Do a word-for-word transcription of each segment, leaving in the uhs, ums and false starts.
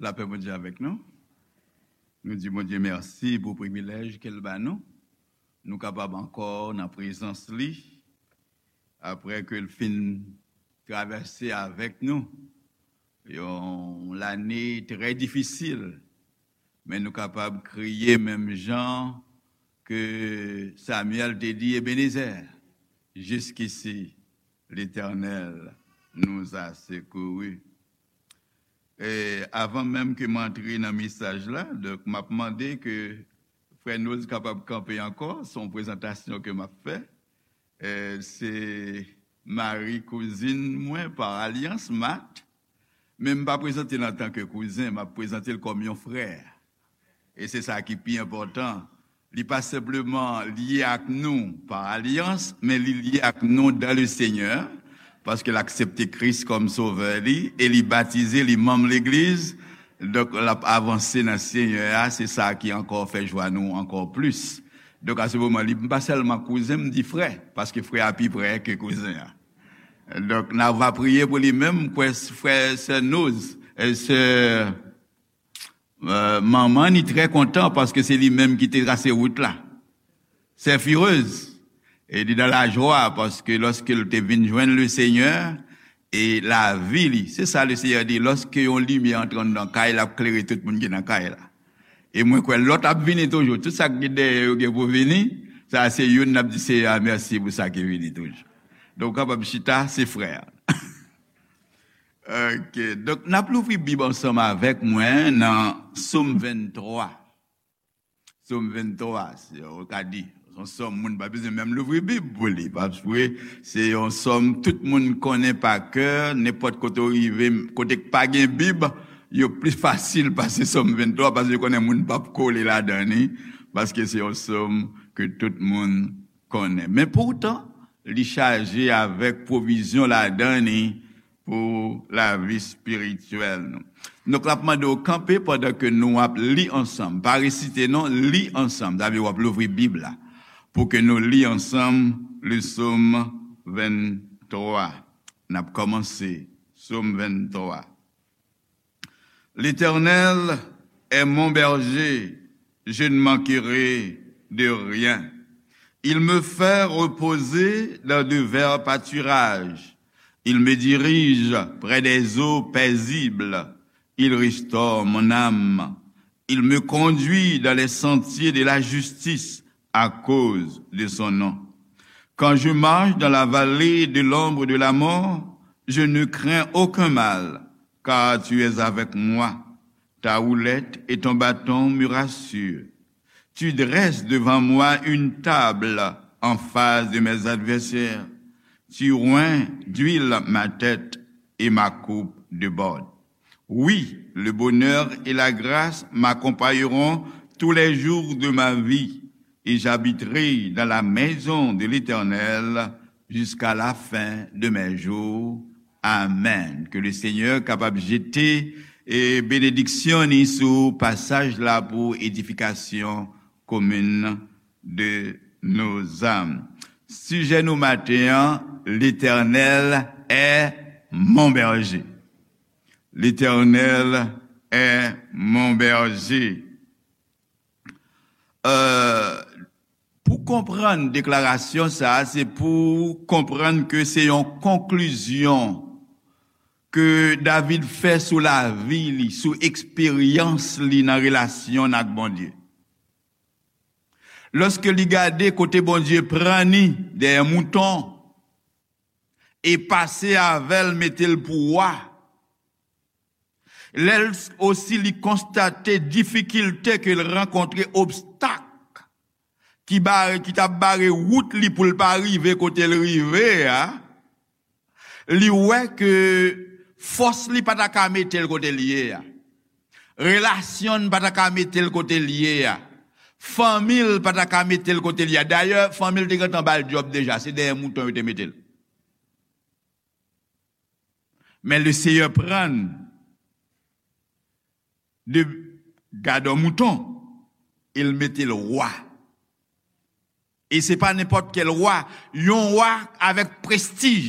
Lapè Bondye avèk nou. Nou di Bondye mèsi pou privilèj ke l ba nou. Nou kapab ankò nan prezans li, apre ke l fin travèse avèk nou yon lane trè difisil, men nou kapab kriye menm jan ke Samyèl te di Ebenezè, "Jusqu'ici, l'Éternel nous a secourus." E avan menm ke m antre nan mesaj la, donk, m ap mande ke frè Noz kapab kanpe ankò, se yon prezantasyon ke m ap fè. E se mari kouzin mwen pa alyans, Mat, men m pa prezante l antanke kouzen, m ap prezante l kòm yon frè. E se sa ki pi enpòtan. Li pa senpleman lye ak nou pa alyans, men li lye ak nou dans le Seigneur, paske l aksepte Kris kòm Sovè li, e li batize, li manm legliz. Donk, l ap avanse nan Senyè a, se sa ki ankò fè jwa nou ankò plis. Donk, a se moman, li pa sèlman kouzen, m di frè, paske frè a pi prè ke kouzen an. Donk, n a va priye pou li menm, m kwè frè, sè Noz, e sè, e, manman ni trè kontan, paske se li menm ki te trase wout la. Sè Firez, e li nan lajwa, paske lòske l te vin jwenn le Senyè, e lavi li, se sa le Senyè di, lòske yon limyè antre anndan kay la, ap klere tout moun ki nan kay la. E mwen kwè lòt ap vini toujou. Tout sa ki dèyè yo gen pou vini, sa se youn n ap di Seyè a mèsi pou sa ki vini toujou. Donk, w kapab chita, se frè a. Ok. Donk, n ap louvri Bib ansanm avèk mwen nan Sòm venntwa. Sòm venntwa, se, ou ka di, se yon sòm moun pa bezwen menm louvri Bib pou li. Paske se yon sòm tout moun konnen pa kè, nenpòt kote w rive, kote k pa gen Bib, yo pli fasil pase Sòm venntwa, paske yo konnen moun p ap kole ladan li, paske se yon sòm ke tout moun konnen. Men poutan, li chaje avèk pwovizyon ladan li pou lavi espirityèl nou. Donk, l ap mande w kanpe pandan ke nou ap li ansanm. Pa resite non, li ansanm. Sa vle w ap louvri Bib la. Pou ke nou li ansanm le Sòm venntwa. N ap kòmanse Sòm venntwa. L'Éternel est mon berger, je ne manquerai de rien. Il me fait reposer dans de verts pâturages. Il me dirige près des eaux paisibles. Il restaure mon âme. Il me conduit dans les sentiers de la justice à cause de son nom. Quand je marche dans la vallée de l'ombre de la mort, je ne crains aucun mal, car tu es avec moi. Ta houlette et ton bâton me rassurent. Tu dresses devant moi une table en face de mes adversaires. Tu oinds d'huile ma tête et ma coupe déborde. Oui, le bonheur et la grâce m'accompagneront tous les jours de ma vie, et j'habiterai dans la maison de l'Éternel jusqu'à la fin de mes jours. Amen. Ke le Senyè kapab jete, e, benediksyon ni sou pasaj la pou edifikasyon komin de nos âmes. Sijè nou maten an, L'Éternel est mon berger. L'Éternel est mon berger. Euh, pou konprann deklarasyon sa a, se pou konprann ke se yon konklizyon ke David fè sou lavi li, sou eksperyans li nan relasyon l ak Bondye. Lòske li gade kote Bondye pran li dèyè mouton e pase avè l, mete l pou wa, lè l osi li konstate difikilte ke l rankontre, obstak ki bare, ki t ap bare wout li pou l pa rive kote l rive a, li wè ke fòs li pa ta ka mete l kote l ye a. Relasyon l pa ta ka mete l kote l ye a. Fanmi l pa ta ka mete l kote l ye a. Dayè, fanmi l te gentan ba l djòb deja. Se dèyè mouton yo te mete l. Men le Seyè pran l de gadò mouton e l mete l wa. E se pa nenpòt kèl wa, yon wa avèk prestij.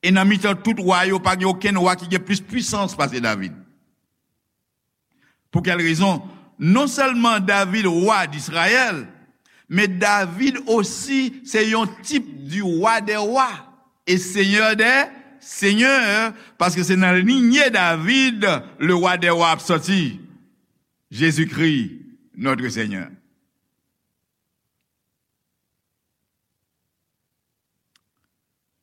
E nan mitan tout wa yo, pa gen okenn wa ki gen plis pwisans pase David. Pour quelle raison? Non sèlman David, wa d Izrayèl, men David osi se yon tip du roi des rois et seigneur des seigneurs, paske se nan linye David le roi des rois ap sòti, Jezikri, notre Seigneur.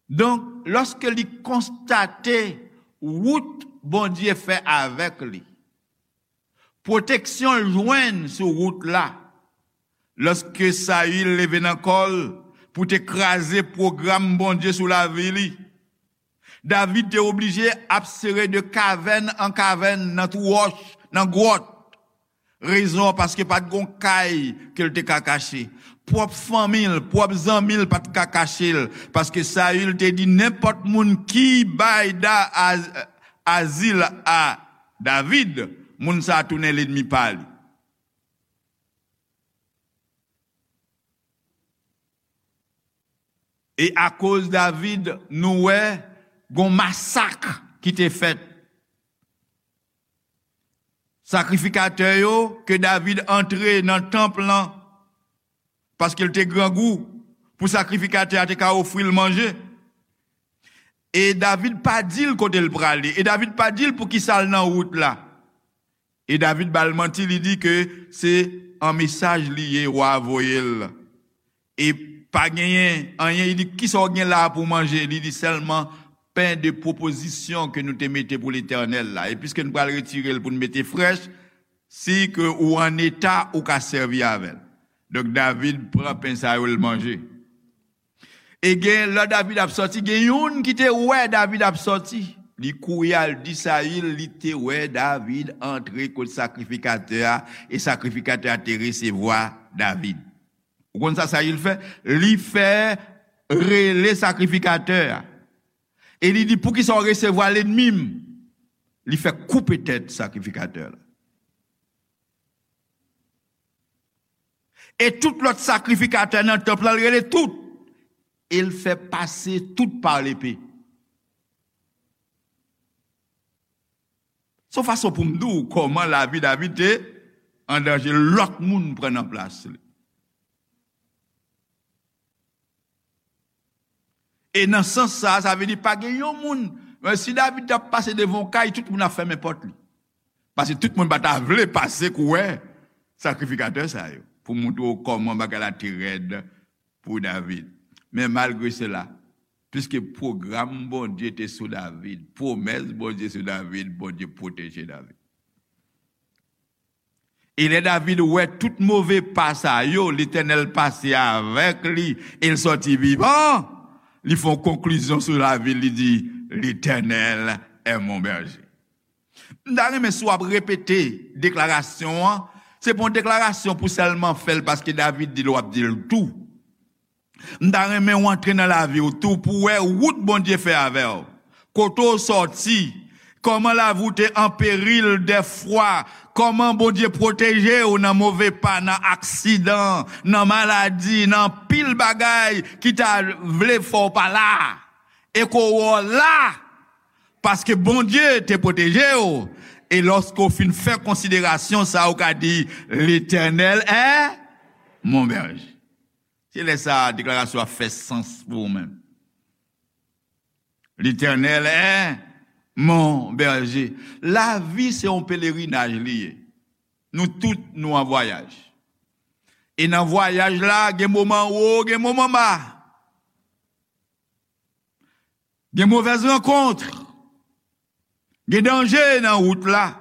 Donk, lòske li konstate wout Bondye fè avèk li, pwoteksyon l jwenn sou wout la, lòske Sayil leve nan kò l pou te kraze pwogram Bondye sou lavi li, David te oblije ap sere de kavèn an kavèn, nan twou wòch, nan gwòt. Rezon an, paske pa t gon kay ke l te ka kache. Pwòp fanmi l, pwòp zanmi l pa t ka kache l, paske Sayil te di nenpòt moun ki bay da, az-, azil a David, moun sa a tounen lènmi pa li. E akoz David, nou wè gon masak ki te fèt. Sakrifikatè yo, ke David antre nan tanp lan, paske l te grangou, pou sakrifikatè a te ka ofri l manje. E David pa di l kote l prale. E David pa di l poukisa l nan wout la. E David ba l manti, li di ke se an mesaj li ye, wa a voye l. E pa genyen anyen, li di, "Kisa w gen la a pou w manje?" Li di, "Sèlman pen de pwopozisyon ke nou te mete pou Letènèl la. E piske nou pral retire l pou n mete frèch, si ke ou an eta, ou ka sèvi avè l." Donk, David pran pen sa yo, l manje. E gen, lè David ap sòti, gen youn ki te wè David ap sòti. Li kouri al di Sayil, li te wè David antre kot sakrifikatè a, e sakrifikatè a te resevwa David. Ou konn sa Sayil fè? Li fè rele sakrifikatè a. E li di, "Poukisa w resevwa lènmi m?" Li fè koupe tèt sakrifikatè la. E tout lòt sakrifikatè nan tanp lan, l rele tout. E l fè pase tout pa lepe. Se yon fason pou m di w kòman lavi David te an danje, lòt moun pran nan plas li. E nan sans sa, sa vle di pa gen yon moun. Men si David t ap pase devan yon kay, tout moun ap fèmen pòt li. Paske tout moun pa ta vle pase kou wè sakrifikatè sa yo, pou montre w kòman bagay la te rèd pou David. Men malgre sela, piske pwogram Bondye te sou David, pwomès Bondye sou David, Bondye pwoteje David. E lè David wè tout move pa sa yo, Letènèl pase avèk li e l sòti vivan, li fè yon konklizyon sou lavi l, li di, "L'Éternel est mon berger." M ta renmen si w ap repete deklarasyon an, se pa yon deklarasyon pou sèlman fè l paske David di l, w ap di l tou. M ta renmen w antre nan lavi w tou pou w wè wout Bondye fè avè w. Kote w sòti, kòman lavi w te an peril dèfwa, kòman Bondye pwoteje w nan move pa, nan aksidan, nan maladi, nan anpil bagay ki ta vle fè w pa la. E ke w wè w la, paske Bondye te pwoteje w. E lòske w fin fè konsiderasyon sa, ou ka di, "L'Éternel est mon berger." Se lè sa a deklarasyon a fè sans pou ou menm. "L'Éternel est mon berger." Lavi se yon pelerinaj li ye. Nou tout, nou an vwayaj. E nan vwayaj la, gen moman wo, gen moman ba. Gen movèz rankont. Gen danje nan wout la.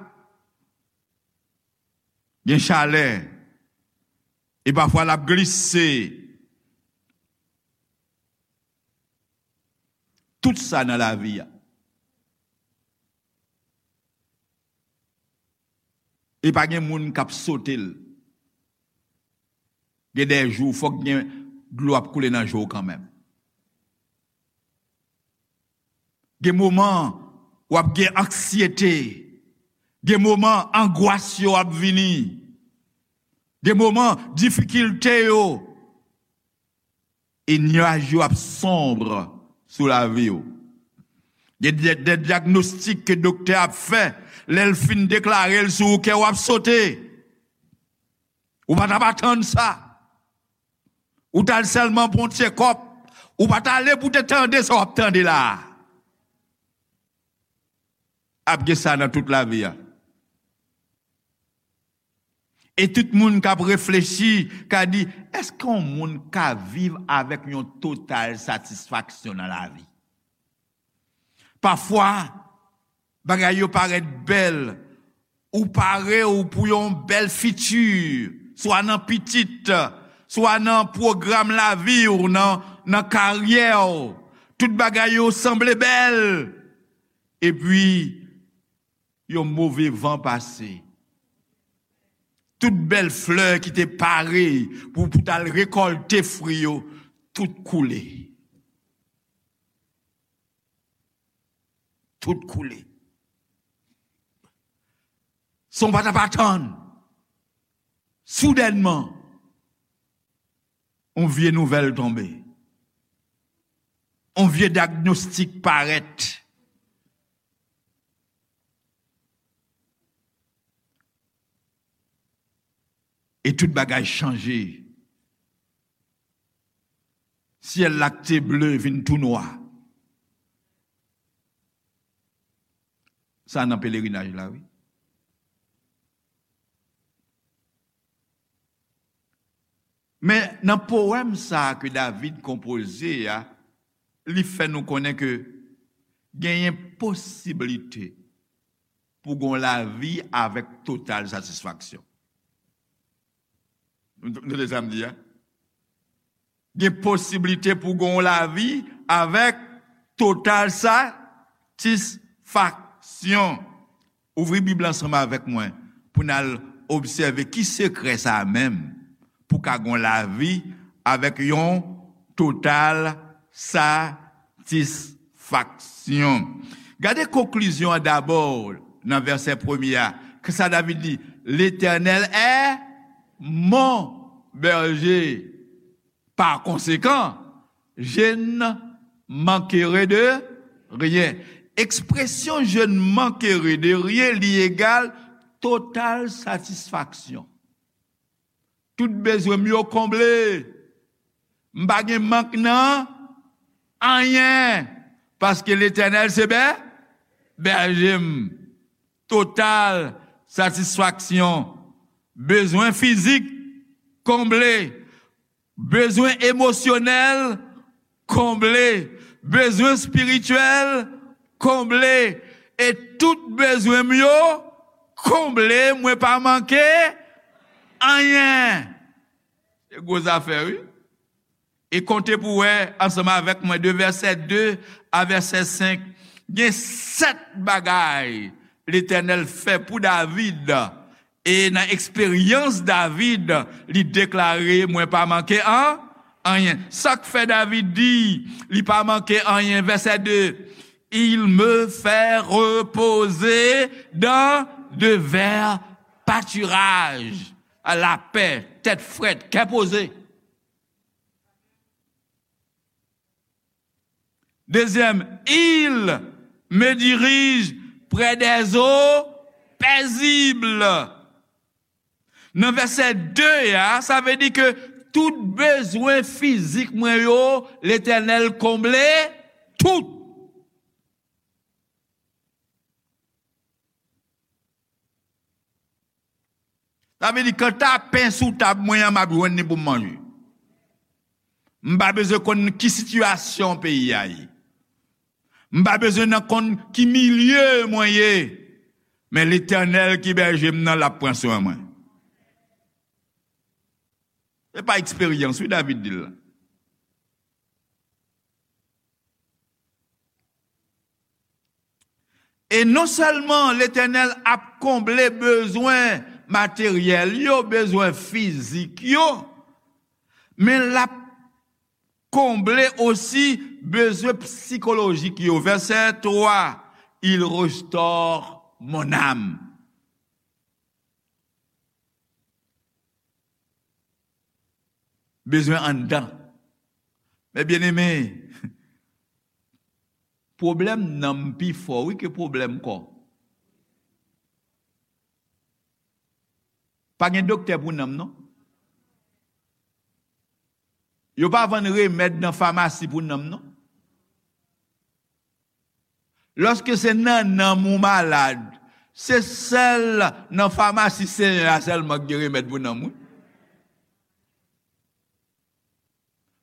Gen chalè. E pafwa l ap glise. Tout sa nan lavi a. E pa gen moun k ap sote l. Gen de jou, fòk gen dlo ap koule nan je w kanmenm. Gen moman w ap gen anksyete. Gen moman angwas yo ap vini. Gen moman difikilte yo. E nyaj yo ap sonb sou lavi w. Gen de, de dyagnostik ke doktè ap fè, lè l fin deklare l sou ou, kè w ap sote. Ou pa t ap atann sa. Ou t al sèlman pou yon tchekòp. Ou pa t ale pou te tande sa w ap tande la a. Ap gen sa nan tout lavi a. E tout moun k ap reflechi ka di, èske yon moun ka viv avèk yon total satisfaksyon nan lavi? Pafwa, bagay yo parèt bèl. Ou pare w pou yon bèl fiti, swa nan pitit, swa nan pwogram lavi w, nan, nan karyè w. Tout bagay yo sanble bèl. Epi, yon move van pase. Tout bèl flè ki te pare pou, pou t al rekòlte fwi yo, tout koule. Tout koule. San w pa t ap atann. Soudènman, yon vye nouvèl tonbe. Yon vye dyagnostik parèt. E tout bagay chanje. Syèl la k te ble vin tou nwa. Sa nan pelerinaj la, wi. Men nan powèm sa a ke David konpoze a, li fè nou konnen ke genyen posiblite pou gon lavi avèk total satisfaksyon. Nou, nou tande sa m di a? Gen posiblite pou gon lavi avèk total satisfaksyon. Ouvri Bib la ansanm avèk mwen pou n al obsève ki sekrè sa a menm pou ka gon lavi avèk yon total satisfaksyon. Gade konklizyon an dabò nan vèsè premye a. Kisa David di? L'Éternel est mon berger. Par conséquent, je ne manquerai de rien. Ekspresyon je ne manquerai de rien, li egal total satisfaksyon. Tout bezwen m yo konble. M pa gen mank nan anyen. Paske Letènèl se bè, bèje m. Total satisfaksyon. Bezwen fizik konble. Bezwen emosyonèl konble. Bezwen espirityèl konble. E tout bezwen m yo konble, mwen pa manke anyen. Se gwo zafè, wi. E konte pou wè, ansanm avèk mwen, de vèsè de a vèsè senk, gen sèt bagay Letènèl fè pou David. E nan eksperyans David, li deklare, mwen pa manke an, anyen. Sa k fè David di, li pa manke anyen, vèsè de, il me fait reposer dans de verts pâturages. La paix, tèt frèt, kè poze. Dezyèm, il me dirige près des eaux paisibles. Nan vèsè de a, sa vle di ke tout bezwen fizik mwen yo, Letènèl konble tout. Sa vle di, kanta pen sou tab mwen an, m ap jwenn li pou m manje. M pa bezwen konn ki sitiyasyon peyi a ye. M pa bezwen nan konn ki milye mwen ye. Men Letènèl ki bèje m nan, l ap pran swen mwen. Se pa eksperyans, wi, David di l la. E non sèlman Letènèl ap konble bezwen materyèl yo, bezwen fizik yo, men l ap konble osi bezwen sikolojik yo. Vèsè twa, il restaure mon âme. Bezwen anndan. Men byeneme, Pwoblèm nanm pi fò, wi, ke pwoblèm kò. Pa gen doktè pou nanm, non. Yo pa vann remèd nan famasi pou nanm, non. Lòske se nan nanm ou malad, se sèl nan famasi Senyè a sèlman ki gen remèd pou nanm, wi.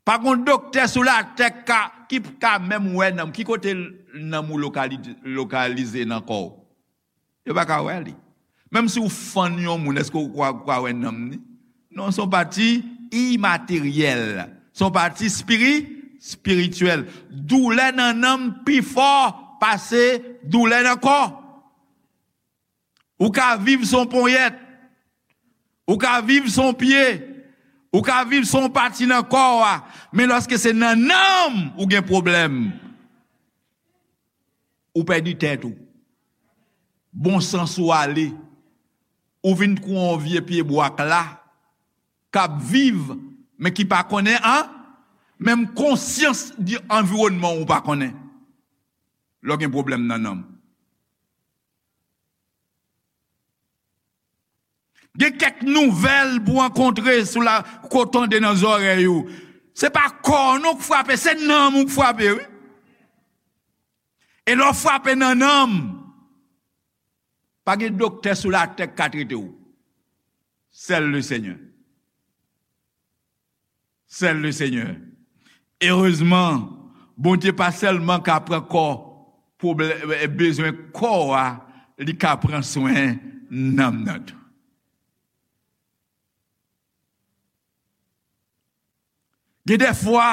Pa gon doktè sou latè ka, ki ka menm wè nanm. Ki kote nanm ou lokali-, lokalize nan kò w? Yo pa ka wè li. Menm si w fann yon moun, èske w kwa, kwa wè nanm ni? Non, se yon pati imateryèl. Se yon pati espiri-, espirityèl. Doulè nan nanm pi fò pase doulè nan kò. Ou ka viv san ponyèt. Ou ka viv san pye. Ou ka viv san pati nan kò a. Men lòske se nan nanm ou gen pwoblèm, ou pèdi tèt ou. Bon sans ou ale. Ou vin kou yon vye pye bwa k la, k ap viv, men ki pa konnen an, menm konsyans di anviwònman ou pa konnen. Lè w gen pwoblèm nan nanm. Gen kèk nouvèl pou rankontre sou la, ko tande nan zòrèy ou. Se pa kò w non k frape, se nanm ou k frape, wi. E lè w frape nan nanm, pa gen doktè sou latè k ka trete w. Sèl le Senyè. Sèl le Senyè. Erezman, Bondye pa sèlman ka pran kò, pwoblè-, bezwen kò a, li ka pran swen nanm nan tou. Gen de fwa,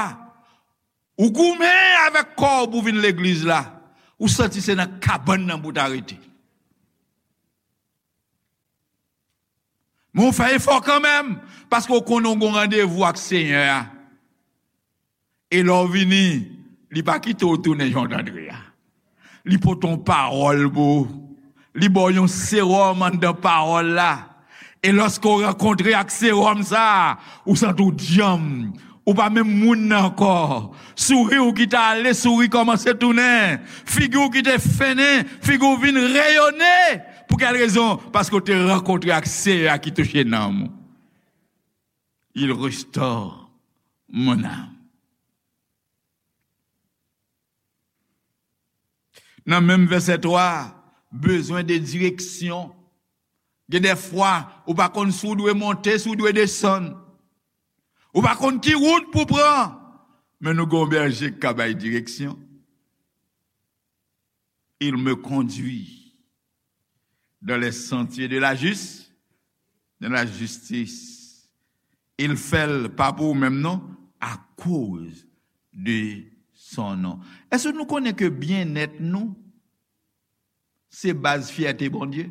ou goumen avèk kò w pou vin legliz la, ou santi se nan kabann nan pou w ta rete. Men w fè efò kanmenm, paske w konnen w gon randevou ak Senyè a. E lè w vini, li pa kite w tounen jan w t antre a. Li pote yon pawòl pou ou. Li ba w yon sewòm anndan pawòl la. E lòske w rankontre ak sewòm sa a, ou santi w djanm. Ou pa menm moun nan ankò. Souri w ki t ale, souri kòmanse tounen. Figi w ki te fennen, figi w vin reyone. Pou kèl rezon? Paske w te rankontre ak Seyè a ki touche nanm ou. Il restaure mon âme. Nan menm vèsè twa, bezwen de direksyon. Gen de fwa, ou pa konn si w dwe monte, si w dwe desann. Ou pa konn ki wout pou pran. Men nou gen yon bèje k ka bay direksyon. Il me conduit dans les sentiers de la jus-, de la justice. Il fè l pa pou ou menm non, akoz de son non. Èske nou konnen ke byennèt nou, se baz fyète Bondye?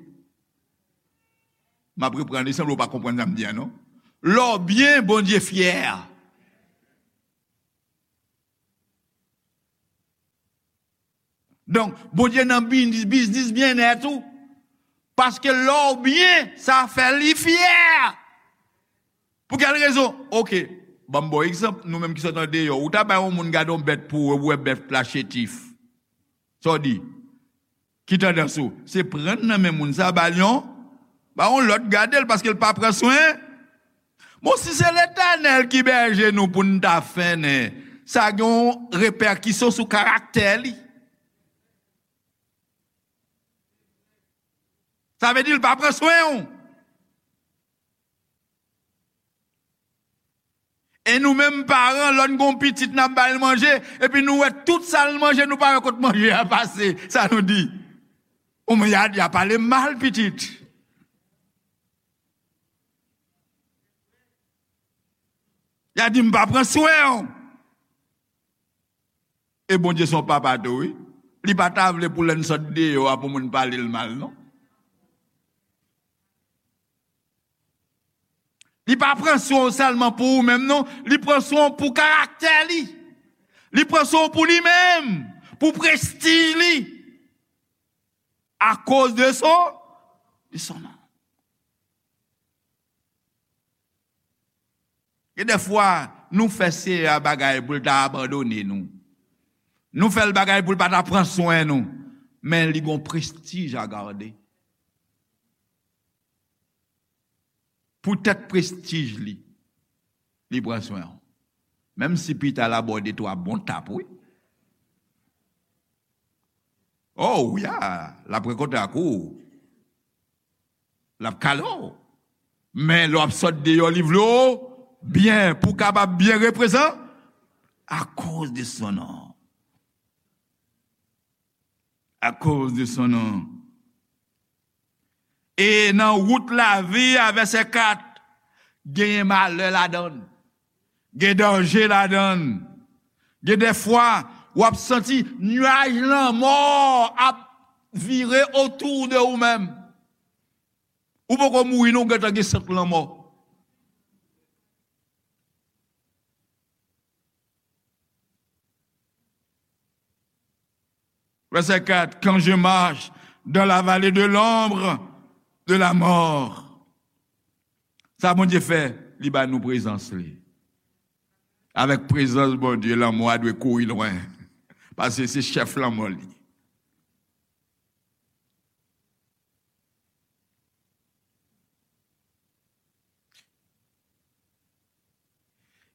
M ap reprann li, sanble w pa konprann sa m di a, non. Lè w byen, Bondye fyè. Donk, Bondye nan biznis, biznis byennèt ou. Paske lè w byen, sa fè li fyè. Pou kèl rezon? Oke, ban m ba w egzanp, nou menm ki sot andeyò, ou ta bay yon moun gade yon bèt pou ou, ou wè bèt la chetif. Sa w di? Ki tandans ou? Se pran nan men moun sa, ba l yon, ba yon lòt gade l, paske l pa pran swen. Bon, si se Letènèl ki bèje nou pou n ta fennen, sa gen yon repèkisyon sou karaktè li. Sa vle di l pa pran swen w. E nou menm paran, lè n gon pitit n ap ba l manje, epi nou wè tout sa l manje, nou pa wè kot manje a pase. Sa nou di? Ou men y a, y a pale m mal, pitit. Y a di m pa pran swen w. E Bondye se yon papa tou, wi. Li pa ta vle pou lè n sot deyò a pou moun pale l mal, non. Li pa pran swen w sèlman pou ou menm, non. Li pran swen w pou karaktè li. Li pran swen w pou li menm, pou prestij li. Akoz de son, de son non. Gen de fwa, nou fè Seyè a bagay pou l ta abandone nou. Nou fè l bagay pou l pa ta pran swen nou, men li gon prestij a gade. Poutèt prestij li, li pran swen w. Menm si pita l abòde twa bon tap, wi. Oh, wi, a, l ap rankontre ak ou. L ap kale w. Men lè w ap sot deyò, li vle w byen, pou w kapab byen reprezan, akoz de son non. Akoz de son non. E nan wout lavi a, vèsè kat, genyen malè ladan l. Gen danje ladan l. Gen dèfwa, w ap santi nyaj lanmò ap vire otou de ou menm. Ou poko mouri non, ou gentan gen sant lanmò. Vèsè kat, quand je marche dans la vallée de l'ombre de la mort. Sa Bondye fè, li ba nou prezans li. Avèk prezans Bondye, lanmò a dwe kouri lwen. Paske se chèf lanmò li.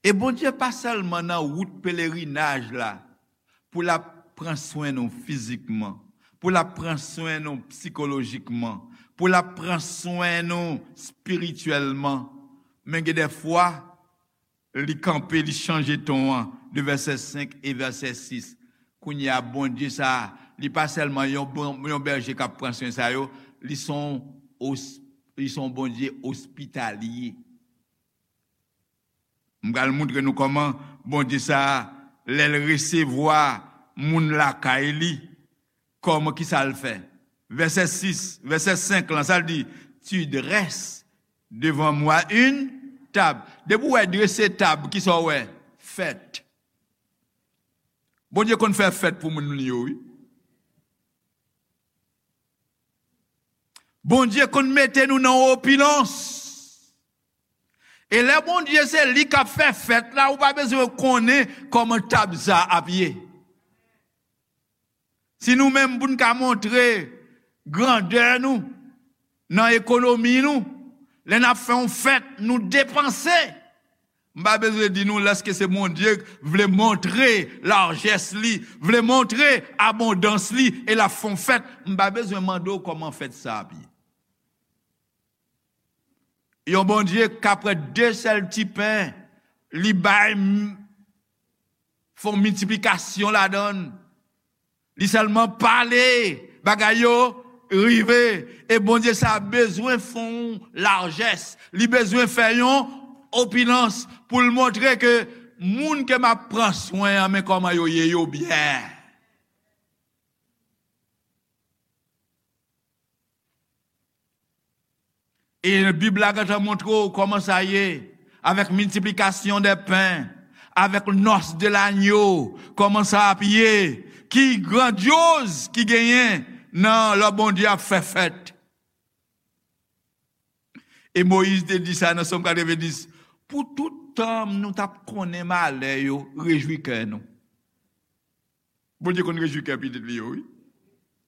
E Bondye pa sèlman nan wout pelerinaj la pou l ap pran swen nou fizikman, pou l ap pran swen nou sikolojikman, pou l ap pran swen nou espirityèlman. Men gen dèfwa, li kanpe, li chanje ton an de vèsè senk e vèsè sis. Kounye a, Bondye sa a, li pa sèlman yon bon, yon bèje k ap pran swen sa yo, li se yon os-, li se yon Bondye ospitalye. M pral montre nou kòman Bondye sa a, lè l resevwa moun lakay li, kòman, kisa l fè? Vèsè sis, vèsè senk lan, sa l di, tu dresses devant moi une table. Depi w wè drese tab, kisa w wè? Fèt. Bondye konn fè fèt pou moun li yo, wi. Bondye konn mete nou nan opilans. E lè Bondye se li k ap fè fèt la, ou pa bezwen konnen kòman tab sa ap ye. Si nou menm pou n ka montre grandè nou nan ekonomi nou, lè n ap fè yon fèt, nou depanse. M pa bezwen di nou lèske se Bondye vle montre lajès li, vle montre abondans li, e l ap fè yon fèt. M pa bezwen mande w kòman fèt sa ap ye. Yon Bondye k ap pran de sèl ti pen, li bay m-, fè yon miltiplikasyon ladan l. Li sèlman pale, bagay yo rive. E Bondye sa bezwen fè yon lajès. Li bezwen fè yon opilans pou l montre ke moun ke m ap pran swen an, men kòman yo ye, yo byen. E Bib la gentan montre w kòman sa ye, avèk miltiplikasyon dè pen, avèk nòs de lanyo, kòman sa ap ye, ki grandyoz ki genyen nan lè Bondye ap fè fèt. E Moyiz te di sa nan Sòm katrevenndis, pou tout tan nou t ap konnen malè yo, rejwi kè nou. Bondye konn rejwi kè pitit li yo, wi.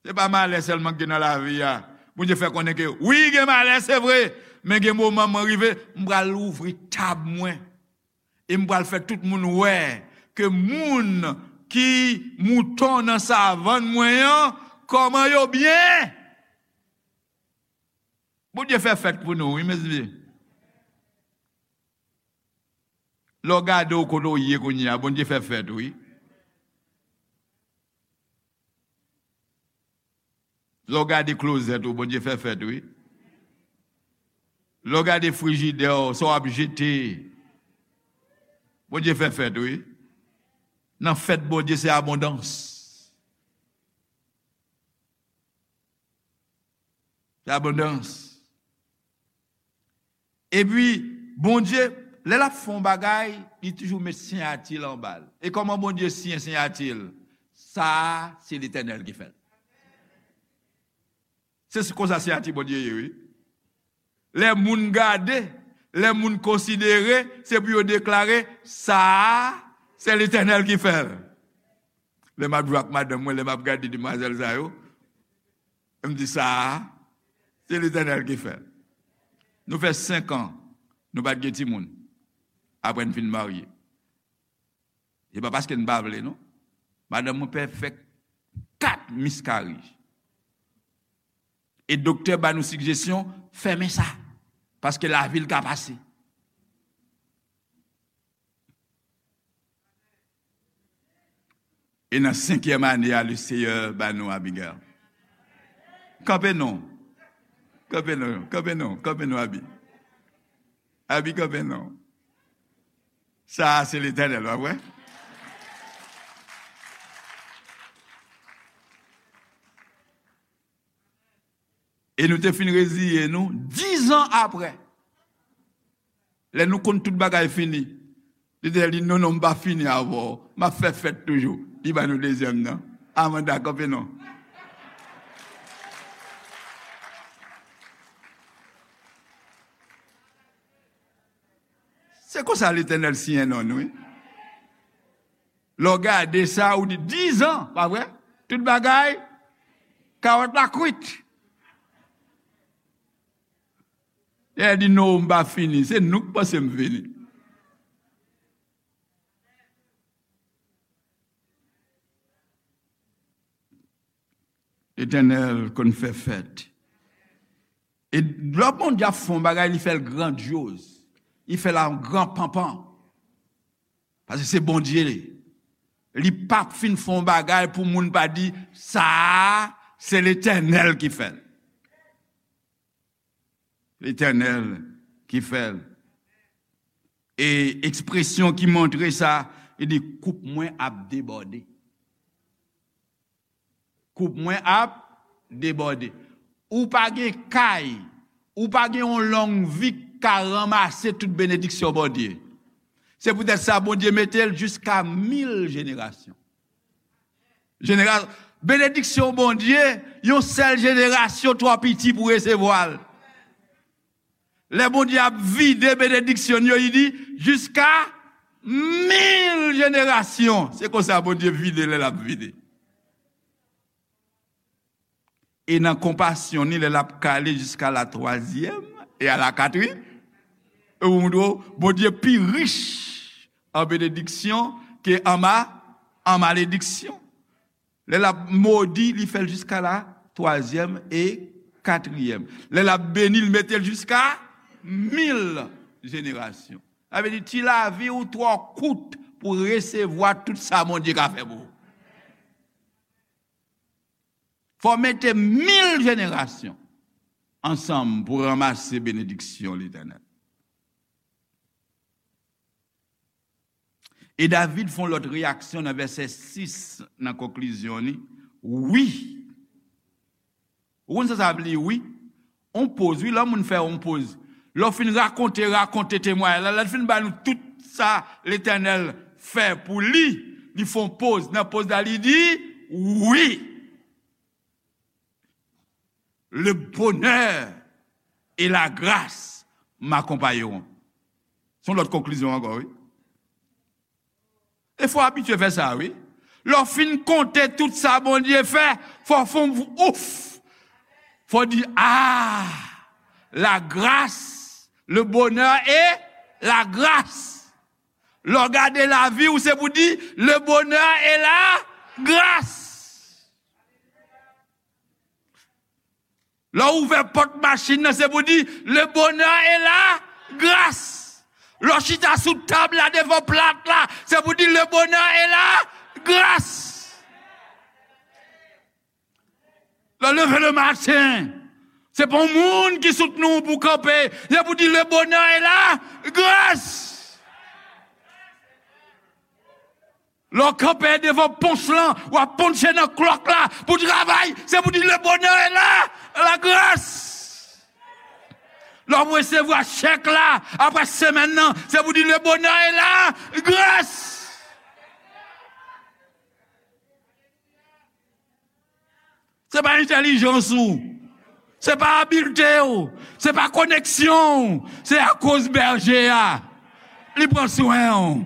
Se pa malè sèlman ki gen nan lavi a. Bondye fè konnen ke, wi, gen malè, se vre, men gen moman mwen rive, m pral ouvri tab mwen. E m pral fè tout moun wè ke moun ki mouton nan savann mwen an, kòman yo byen. Bondye fè fèt pou nou, wi, mezanmi. Lè w gade w kote w ye kounye a, Bondye fè fèt, wi. Lè w gade klozèt ou, Bondye fè fèt, wi. Lè w gade frijidè w, sa w ap jete, Bondye fè fèt, wi. Nan fèt Bondye, se abondans. Se abondans. Epi, Bondye, lè l ap fè yon bagay, li toujou met siyati l anba l. E kòman Bondye siyen siyati l? Sa a, se Letènèl ki fè l. Se konsa siyati Bondye ye, wi. Lè moun gade, lè moun konsidere, se pou yo deklare, sa a, se Letènèl ki fè l. Lè m ap jwe ak madanm mwen, lè m ap gade demwazèl sa yo, m di, "Sa a, se Letènèl ki fè l." Nou fè senk an, nou pa t gen timoun. Apre n fin marye. Se pa paske n pa vle, non. Madanm mwen pè fè kat miscarriage. E doktè ba nou sigjesyon, fèmen sa. Paske lavi l ka pase. E nan senkyèm ane a, le Seyè ba nou Abigail. Kanpe non. Kanpe non, kanpe non, kanpe non, Abi. Abi, kanpe non. Sa a, se Letènèl, pa vre? E nou te fin reziye nou, diz an apre. Lè nou konn tout bagay fini, Letènèl di, "Non, non, m pa fini avè w. M ap fè fèt toujou." Li ba nou dezyèm nan. Amanda, kanpe non. Se konsa Letènèl siyen non nou, wi. Lè w gade sa, ou di, "Diz an, pa vre? Tout bagay, kawòt la kwit." Letènèl di, "Non, m pa fini. Se nou k panse m fini." Letènèl konn fè fèt. E lè Bondye ap fè yon bagay, li fè l grandyoz. Li fè l an gran panpan. Paske se Bondye li. Li p ap fin fè yon bagay pou moun pa di, "Sa a, se Letènèl ki fè l." Letènèl ki fè l. E ekspresyon ki montre sa, li di, "Koup mwen ap debòde." Koup mwen ap debòde. Ou pa gen kay, ou pa gen yon long vi k ka ranmase tout benediksyon Bondye. Se poutèt sa Bondye mete l jiska mil jenerasyon. Jenera-, benediksyon Bondye, yon sèl jenerasyon twò piti pou resevwa l. Lè Bondye ap vide benediksyon yo, li di, "Jiska mil jenerasyon." Se konsa Bondye vide lè l ap vide. E nan konpasyon ni, lè l ap kale jiska la twazyèm e a la katriyèm, e ou montre w, Bondye pi rich an benediksyon ke an ma-, an malediksyon. Lè l ap modi, li fè l jiska la twazyèm e katriyèm. Lè l ap beni, li mete l jiska mil jenerasyon. Sa vle di, ti lavi ou twò kout pou resevwa tout sa Bondye ka fè pou ou. Fò w mete mil jenerasyon ansanm pou ranmase benediksyon Letènèl. E David fè yon lòt reyaksyon nan vèsè sis, nan konklizyon li. Wi. Ou konn sa sa vle di, wi? On poz, wi, lè moun fè on poz. Lè w fin rakonte, rakonte temwayaj la, lè l fin ba nou tout sa Letènèl fè pou li, li fè on poz. Nan poz la, li di, wi. Le bonheur et la grâce m'accompagneront. Se yon lòt konklizyon ankò, wi. E fò w abitye fè sa, wi. Lè w fin konte tout sa Bondye fè, fò w fè yon ouf. Fò w di, ah, la grâce, le bonheur et la grâce. Lè w gade lavi w, se pou di, le bonheur et la grâce. Lè w ouvè pòt machin nan, se pou di, le bonheur et la grâce. Lè w chita sou tab la, devan plat la, se pou di, le bonheur et la grâce. Lè w leve le maten, se pa yon moun ki soutni w pou w kanpe, se pou di, le bonheur et la grâce. Lè w kanpe devan ponch lan, w ap ponche nan klòk la pou travay, se pou di, le bonheur est là, la grâce. Lè w resevwa chèk la, apre semèn nan, se pou di, le bonheur est là, grâce. Se pa entèlijans ou. Se pa abilte ou. Se pa koneksyon ou. Se akoz bèje a. Li pran swen ou.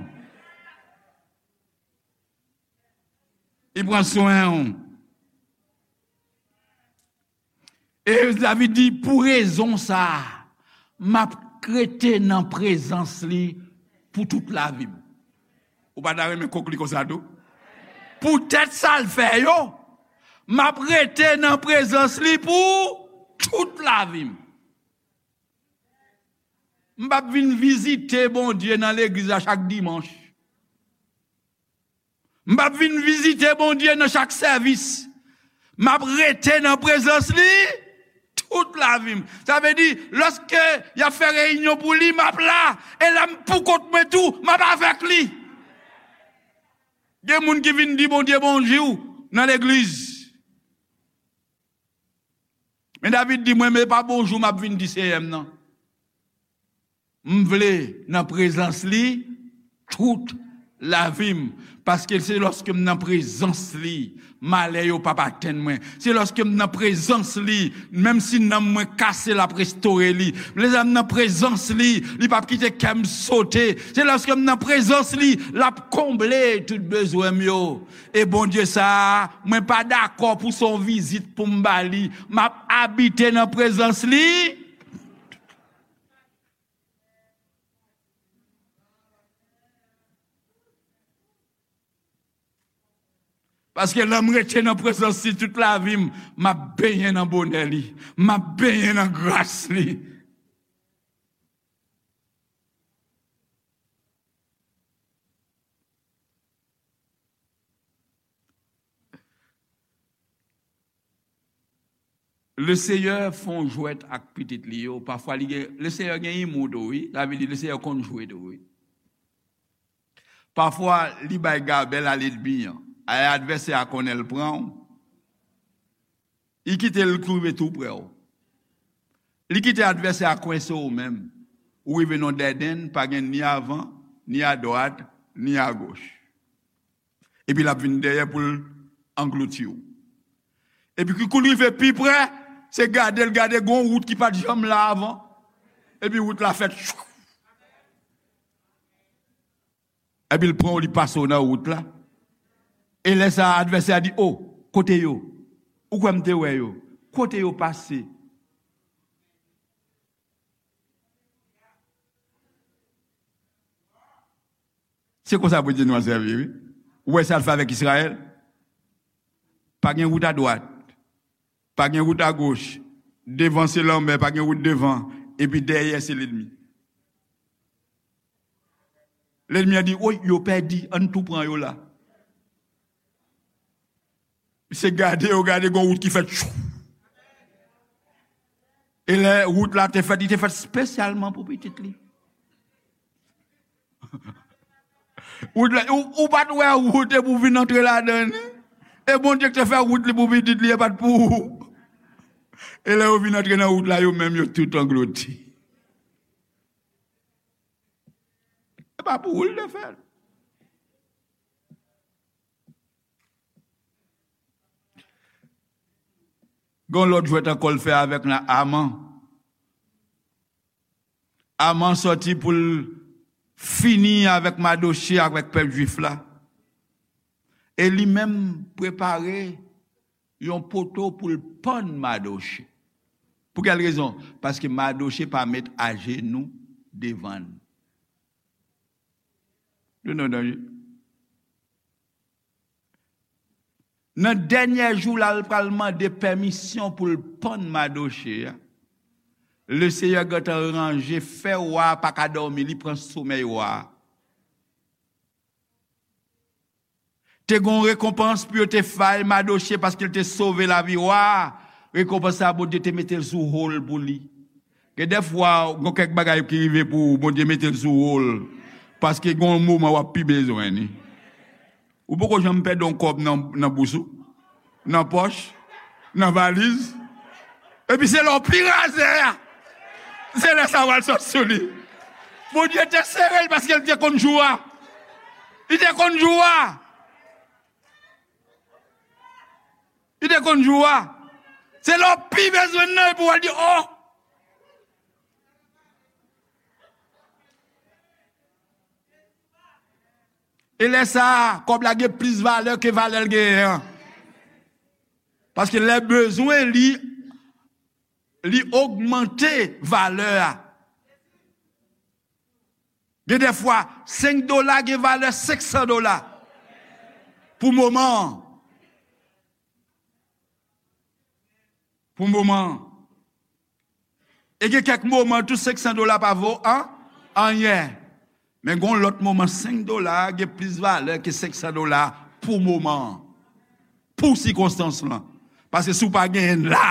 Li pran swen w. E David di, pou rezon sa a, m ap rete nan prezans li pou tout lavi m. Ou pa ta renmen konkli konsa tou? Poutèt sa l fè yo, m ap rete nan prezans li pou tout lavi m. M p ap vin vizite Bondye nan legliz la chak dimanch. M p ap vin vizite Bondye nan chak sèvis. M ap rete nan prezans li tout lavi m. Sa vle di, lòske y ap fè reyinyon pou li, m ap la. E lè m poukont mwen tou, m ap avèk li. Gen moun ki vin di Bondye bonjou nan legliz. Men David di, mwen, men pa bonjou m ap vin di Seyè m nan. M vle nan prezans li tout lavi m. Paske se lòske m nan prezans li, malè yo p ap atenn mwen. Se lòske m nan prezans li, menm si nanm mwen kase, l ap restore li. Lè m nan prezans li, li p ap kite kè m sote. Se lòske m nan prezans li, l ap konble tout bezwen m yo. E Bondye sa a, mwen pa dakò pou se yon vizit pou m ba li. M ap abite nan prezans li. Paske lè m rete nan prezans li tout lavi m, m ap benyen nan bonè li. M ap benyen nan gras li. Lesenyè fè yon jwèt ak pitit li yo. Pafwa, li gen, Lesenyè gen imou tou, wi. Sa vle di, Lesenyè konn jwe tou, wi. Pafwa, li bay gabèl a lènmi an. Ay, advèsè a konnen l pran w. Li kite l rive tou prè w. Li kite advèsè a kwense w menm. Ou rive nan dèdèn, pa gen ni avan, ni adwat, ni agoch. Epi l ap vin dèyè pou l anglouti w. Epi kou l rive pi prè, se gade l gade gon wout ki pa t janm la avan. Epi wout la fèt. Epi l pran w, li pase w nan wout la. E lè sa a, advèsè a di, o, kote yo? Ou kwè m te wè yo? Kote yo pase? Se konsa Bondye nou an sèvi, wi. Ou wè sa l fè avèk Izrayèl? Pa gen wout adwat, pa gen wout agoch, devan se lanmè, pa gen wout devan, epi dèyè se lènmi. Lènmi an di, oy, yo pèdi, ann tou pran yo la. Misye gade, yo gade, gon wout ki fèt. Tchou. E lè wout la te fèt, li te fèt espesyalman pou pitit li. Wout la, ou, ou pa t wè wout e pou vin antre ladan li. E Bondye ki te fè wout li pou pitit li, e pa t pou ou. E lè yo vin antre nan wout la, yo menm yo tout anglouti. E pa pou ou l te fè l. Gon lòt jwèt ankò l fè avèk Aman. Aman sòti pou l fini avèk Madoche, avèk pèp jwif la. E li menm prepare yon poto pou l pann Madoche. Pou kèl rezon? Paske Madoche pa met ajenou devan l. You know, don't you? Nan dènye jou la, l pral mande pèmisyon pou l pann Madoche a. Lesenyè gentan ranje, fè wa a pa ka dòmi, li pran somèy wa a. Te gen yon rekonpans pou yo te fè Madoche paske l te sove lavi wa a. Rekonpans sa a, Bondye te mete l sou wo l pou li. Gen dèfwa, gen kèk bagay ki rive pou ou, Bondye mete l sou wo l. Paske gen yon moman w ap pi bezwen li. Ou poko janm pèdi yon kòb nan, nan bous ou, nan pòch, nan valiz. Epi se lè w pi razè a, se lè sa pral sot sou li. Bondye te sere l paske l te konn jou a. Li te konn jou a. Li te konn jou a. Se lè w pi bezwen l nan epi w al di, o! E lè sa a, kòb la gen plis valè ke valè l genyen an. Paske lè bezwen li, li ogmante valè a. Gen de fwa, senk dola gen valè senk san dola pou moman an. Pou moman an. E gen kèk moman tou senk san dola pa vo an, anyen. Men gen yon lòt moman senk dola a gen plis valè ke senk san dola pou moman an. Pou sikonstans lan. Paske si w pa genyen l la,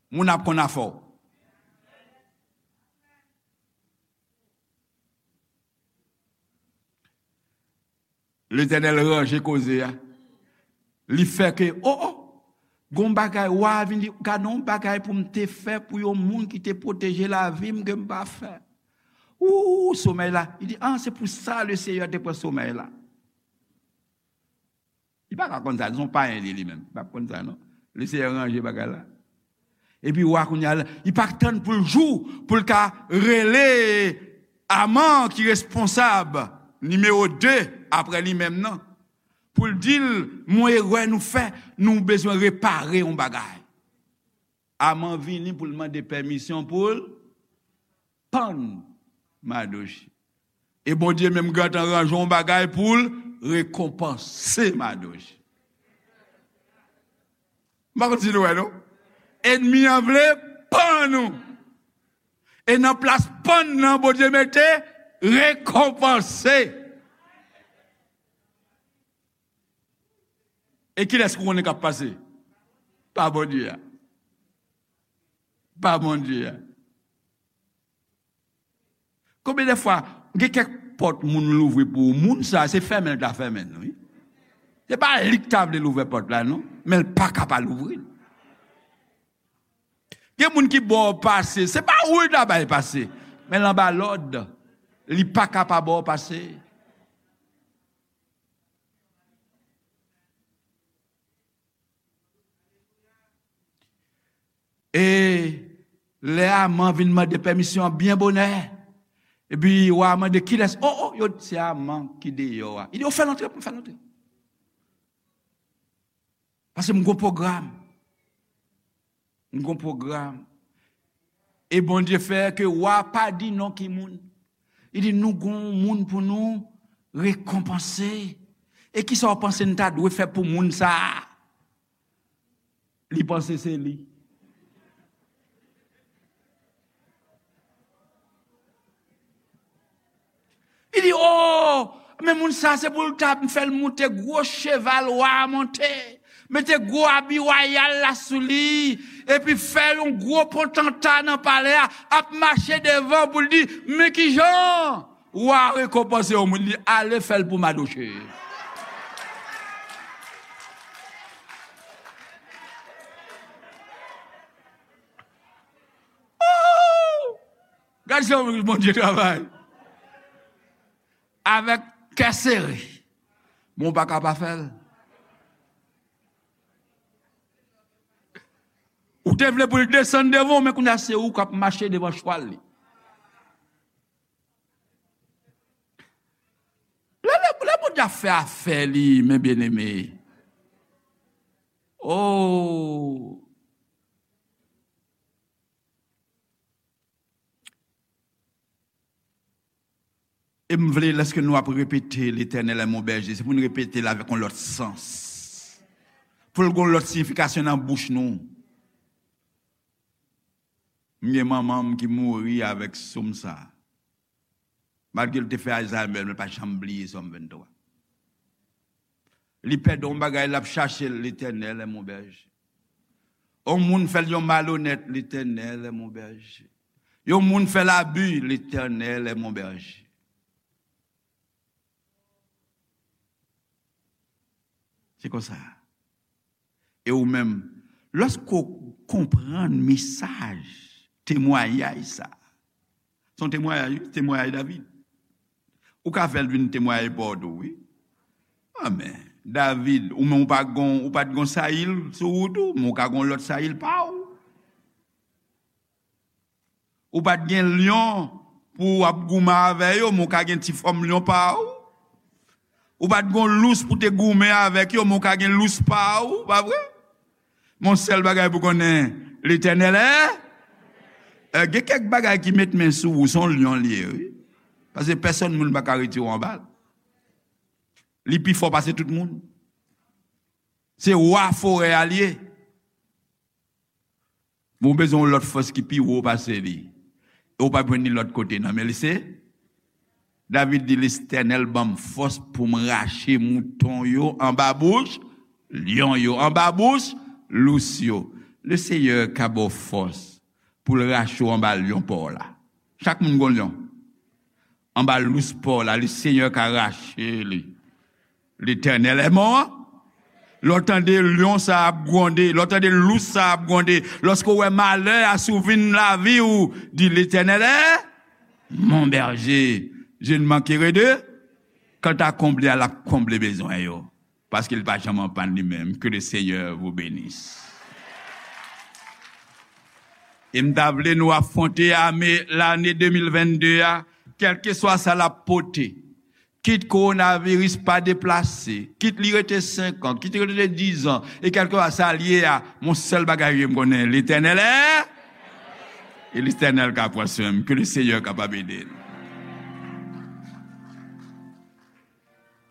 moun ap konn afè w. Letènèl ranje koze a. Li fè ke, o, o, gon bagay, wa a vin di, gade yon bagay pou m te fè pou yon moun ki te pwoteje lavi m ke m pa fè. Ou, somèy la. Li di, a, se pou sa Lesenyè te pran somèy la. Li pa ka konn sa, se yon payen li, li menm. Li pa konn sa, non. Lesenyè ranje bagay la. Epi wa kounye a, li pa tann pou l jou, pou l ka rele Aman ki responsab nimewo de apre li menm nan. Pou l di l, gon erè nou fè, nou bezwen repare yon bagay. Aman vini pou l mande pèmisyon pou l pann Madoche. E Bondye menm gentan ranje yon bagay pou l rekonpanse Madoche. M pa konn si nou wè, non. Ènmi an vle pann nou. E nan plas pann nan, Bondye mete rekonpanse. E kilès ou konnen k ap pase? Pa Bondye a. Pa Bondye a. Konbyen de fwa, gen kèk pòt moun louvri pou ou, moun sa, se fèmen l ta fèmen l, wi. Se pa li k ta vle l ouvè pòt la, non, men l pa ka pa louvri l. Gen moun ki ba w pase, se pa ou l ta bay pase, men l anba lòd, li pa ka pa ba w pase. E lè Aman vin mande pèmisyon an byen bonè, epi wa a mande kilès, o, o, yo di se Aman ki deyò a. Li di, o, fè l antre pou m fè l antre. Paske m gon pwogram. M gon pwogram. E Bondye fè ke wa pa di non ki moun. Li di, nou gon moun pou nou rekonpanse. E kisa w panse n ta dwe fè pou moun sa a? Li panse se li. Li di, o, men moun sa se pou l ta fè l moute gwo cheval wa a monte, mete gwo abi wayal la sou li, epi fè yon gwo potanta nan palè a, ap mache devan pou l di, men kijan wa a rekonpanse yon moun, li ale fè l pou Madoche. Gad jan Bondye travay. Avèk kè sere. Men w pa ka pa fè l. Ou te vle pou l desann devan w, men kounye a se ou k ap mache devan chwal li. Lè, lè, lè Bondye ap fè afè li, men byeneme. Oh! E m vle, lèske nou ap repete, Letènèl è mon bèje, se pou n repete l avèk yon lòt sans. Pou l gen yon lòt siyifikasyon nan bouch nou. M gen manman m ki mouri avèk sòm sa. Malgre l te fè Alzheimer, men l pa janm bliye Sòm venntwa. Li pèdi yon bagay, l ap chache l, Letènèl è mon bèje. Yon moun fè l yon malonèt, Letènèl è mon bèje. Yon moun fè l abi, Letènèl è mon bèje. Se konsa. E ou menm, lòske w konprann mesaj temwayaj sa, se yon temwayaj, wi, temwayaj David. Ou ka fè l vin temwayaj pa w tou, wi. Amèn. David, ou menm ou pa gon, ou pa t gon Sayil sou ou tou, men ou ka gon lòt Sayil pa w. Ou pa t gen lyon pou w ap goumen avè yo, men w ka gen ti fòm lyon pa ou. Ou pa t gon lous pou te goumen avèk yo, men w ka gen lous pa ou, pa vre? Mon sèl bagay pou konnen, Letènèl è. Eh, gen kèk bagay ki met men sou ou, se yon lyon li ye, wi. Paske pèsonn moun pa ka retire w anba l. Li pi fò pase tout moun. Se wa forè a li ye. Bon, w bezwen yon lòt fòs ki pi wo pase li. E w p ap jwenn li lòt kote, non, men li se. David di, Letènèl ban m fòs pou m rache mouton yo anba bouch lyon yo, anba bouch lous yo. Le Seyè ka ba w fòs pou l rache w anba lyon pa w la. Chak moun gon lyon. Anba lous pa w la, le Seyè ka rache li. Letènèl è mon. Lè w tande lyon sa ap gwonde, lè w tande lous sa ap gwonde, lòske w wè malè a sou vin lavi w, di, Letènèl è mon berger, je ne manquerai de. Kanta konble a, l ap konble bezwen yo. Paske li pa janm anpann li menm. Que le Seigneur vous bénisse. E m ta vle nou afwonte ane, lane de mil vennde a, kèlkeswa sa l ap pote. Kit kowonaviris pa deplase, kit li rete senk an, kit li rete diz an, e kèlkeswa sa l ye a, mon sèl bagay m konnen, Letènèl è, e Letènèl ka pran swen m, ke le Seyè kapab ede n.